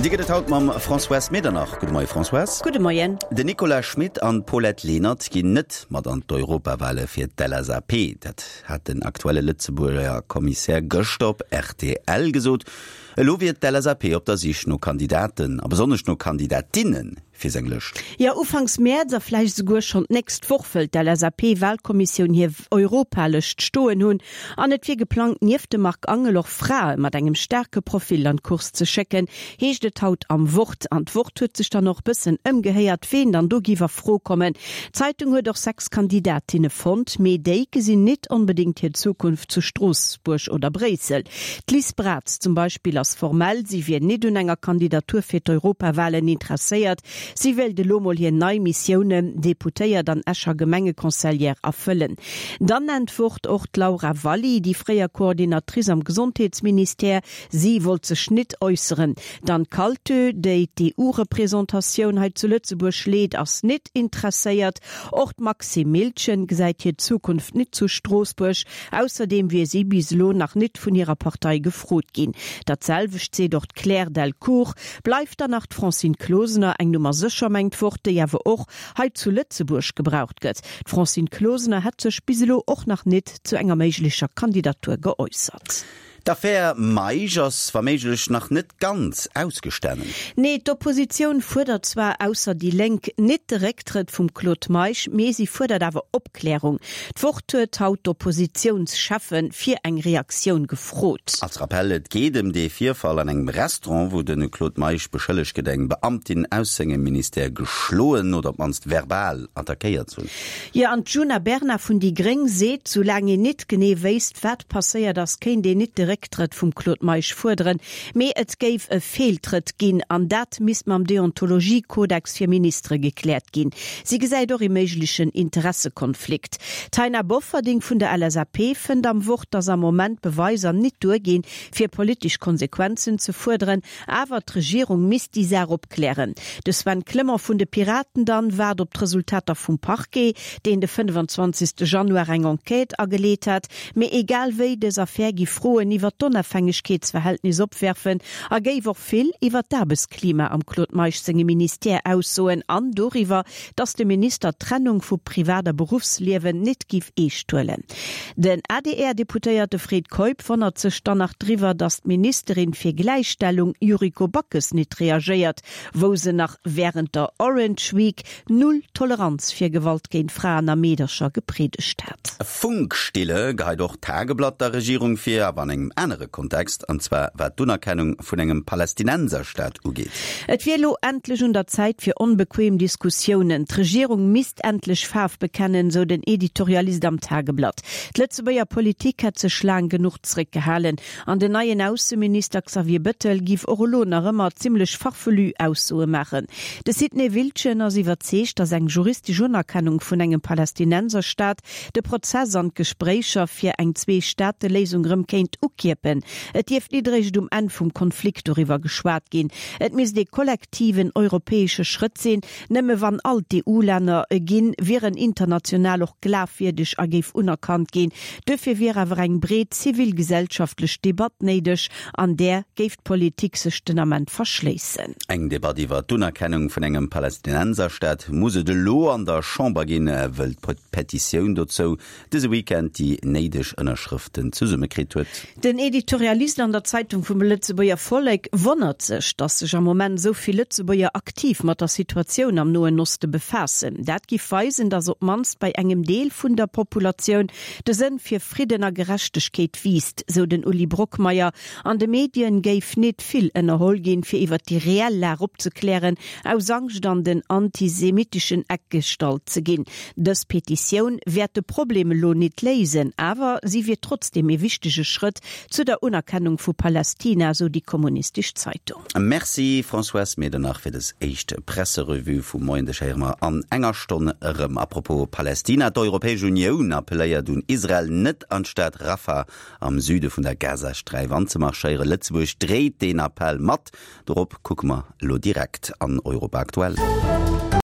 An déi gëtt et haut mam Françoise Medernach. Gudde Moie Françoise. Gudde Moien. Den Nicolas Schmit an d'Paulette Lenert ginn net mat an d'Europawale fir d'LSAP. Dat hat den aktuelle Lëtzebuerger Kommissär gëschter op rtl gesot. Elo wier d'LSAP op der Sich no Kandidaten a besonnesch no Kandidatinnen fir seng Lëscht. Jo, ufanks Mäerz a vläicht esouguer schonn d'nächst Woch wëll d'LSAP-Walkommissioun hir Europalëscht stoen hunn. An et wier geplangt, nieft dem Marc Angel och Frae mat engem staarke Profil an d'Course ze schécken, heescht et haut am Wort. An d'Wort huet sech dann och bëssen ëmgehéiert, ween dann do giff a Fro kommen. D'Zeitung huet och 6 Kandidatinne fonnt, mee déi gesinn nit onbedéngt hir Zukunft zu Stroossbuerg oder Bréissel. D'Liz Braz zum Beispill ass formell, si wier nit un enger Kandidatur fir d'Europawahlen interesséiert. Si wéilt elo mol hir nei Missiounen, Deputéiert an Escher Gemengeconseillère, erfëllen. Dann nennt d'Wort och d'Laura Valli, déi fréier Coordinatrice am Gesondheetsministère. Si wollt sech nit äusseren. D'Anne Kaltö, déi d'EU-Représentatioun hei zu Lëtzebuerg leet, ass nit interesséiert. Och d'Maxime Miltgen gesäit hir Zukunft nit zu Stroossbuerg. Ausserdeem wier si bis elo nach nit vun hirer Partei gefrot ginn. Dat selwecht seet och d'Claire Delcourt. Bleift dann nach d'Francine Closener, eng Nummer sécher, mengt d'Wort, déi awer och hei zu Lëtzebuerg gebraucht gëtt. D'Francine Closener hätt sech bis elo och nach nit zu enger méiglecher Kandidatur geäussert. D'Affär Meisch ass wa méiglech nach net ganz ausgestanen. Nee, d'Oppositioun fuerdert zwar, ausser déi Lénk, nit de Récktrëtt vum Claude Meisch, mee si fuerdert awer Opklärung. D'Wort huet haut d'Oppositiounscheffe fir eng Reaktioun gefrot. Als Rappell, Et geet ëm dee Virfall an engem Restaurant, wou de Claude Meisch beschëllegt gëtt, eng Beamtin aus sengem Ministère geschloen oder op d'mannst verbal attackéiert ze hunn. Jo, an d'Djuna Bernard vun déi gréng seet, soulaang een nit genee wéisst, wat passéiert ass, kéint een nit de Récktrëtt vum Claude Meisch fuerderen, mee et géif e Feeltrëtt ginn an dat misst mam Deontologiekodex fir Ministere gekläert ginn. Si gesäit och ee méiglechen Interessekonflikt. D'Taina Bofferding vun der LSAP fënnt am Wort, datt am Moment d'Beweiser nit duerginn, fir politesch Konsequenzen ze fuerderen. Awer d'Regierung misst déi Saach opklären. De Sven Clement vun de Piraten dann waart op d'Resultater vum Parquet, deen de 25. Januar eng Enquête ageleet hat. Mee egal wéi, dës Affär giff Froen iwwer d'Onafhängegkeetsverhältnis opwerfen a géif och vill iwwer d'Aarbechtsklima am Claude Meisch sengem Ministère aussoen an doriwwer, datt de Minister d'Trennung vu Privat a Beruffsliewen nit giff eescht huelen. Den ADR-Deputéierte Fred Keup wonnert sech dann nach driwwer, datt d'Ministerin fir Gläichstellung Yuriko Backes nit reagéiert, wou se nach wärend der Orange Week Null Toleranz fir Gewalt géint Fraen a Meedercher gepriedegt hat. Funkstille geheit och d'Tageblatt der Regierung vir, awer an engem anere Kontext, an zwar wat d'Unerkennung vun engem Palästinenserstaat ugeet. Et wier elo endlech un der Zäit fir onbequem Diskussiounen. D'Regierung misst endlech Faarf bekennen, sou den Editorialist am Tageblatt. D'Lëtzebuerger Politik hätt sech laang genuch zréckgehalen. An den neien Ausseminister Xavier Bëttel giff och elo nach ëmmer zimmlech farfelu Aussoe maachen. De Sidney Wiltgen ass iwwerzeegt, datt eng juristesch Unerkennung vun engem Palästinenserstaat de Prozess an d'Gespréicher fir eng Zwee-Staate-Léisung rëm kéint ukierpen. Et dierft nit eréischt um Enn vum Konflikt doriwwer geschwat ginn. Et misst ee kollektiven europäesche Schrëtt sinn. Nëmme wann all d'EU-Länner e ginn, wier en international och glafwierdeg a géif unerkannt ginn. Duerfir wier awer eng breet zivilgesellschaftlech Debatt néideg. An där géif d'Politik sech den Ament verschléissen. Eng Debatt iwwer d'Unerkennung vun engem Palästinenserstaat muss et elo an der Chamber ginn, wëll d'Petitioun dozou dëse Weekend déi néideg Ënnerschrëften zesummekritt huet. Den Editorialist an der Zeitung vum Lëtzebuerger Vollek wonnert sech, datt sech am Moment esou vill Lëtzebuerger aktiv mat der Situatioun am Noen Oste befaassen. Dat giff weisen, datt op d'mannst bei engem Deel vun der Populatioun de Sënn fir Fridden a Gerechtegkeet wiisst, sou den Uli Brockmeyer. An de Medien géif nit vill ënnerholl ginn, fir iwwer déi reell Lag opzeklären, aus Angscht an den antisemitischen Eck gestallt ze ginn. Dës Petitioun wäert de Problem elo nit léisen, awer si wier trotzdeem ee wichtege Schrëtt zu der Unerkennung vu Palästina, sou déi kommunistesch Zeitung. Merci Françoise Medernach fir des éischt Presserevue vum Moien. Dech héiere mer an enger Stonn erëm. A propos Palästina, D'Europäesch Unioun appelléiert un Israel, net an d'Stad Rafah am Süde vun der Gazasträif anzemarschéieren. Lëtzebuerg dréit deen Appell mat. Dorop kucke mer elo direkt an Europa Aktuell.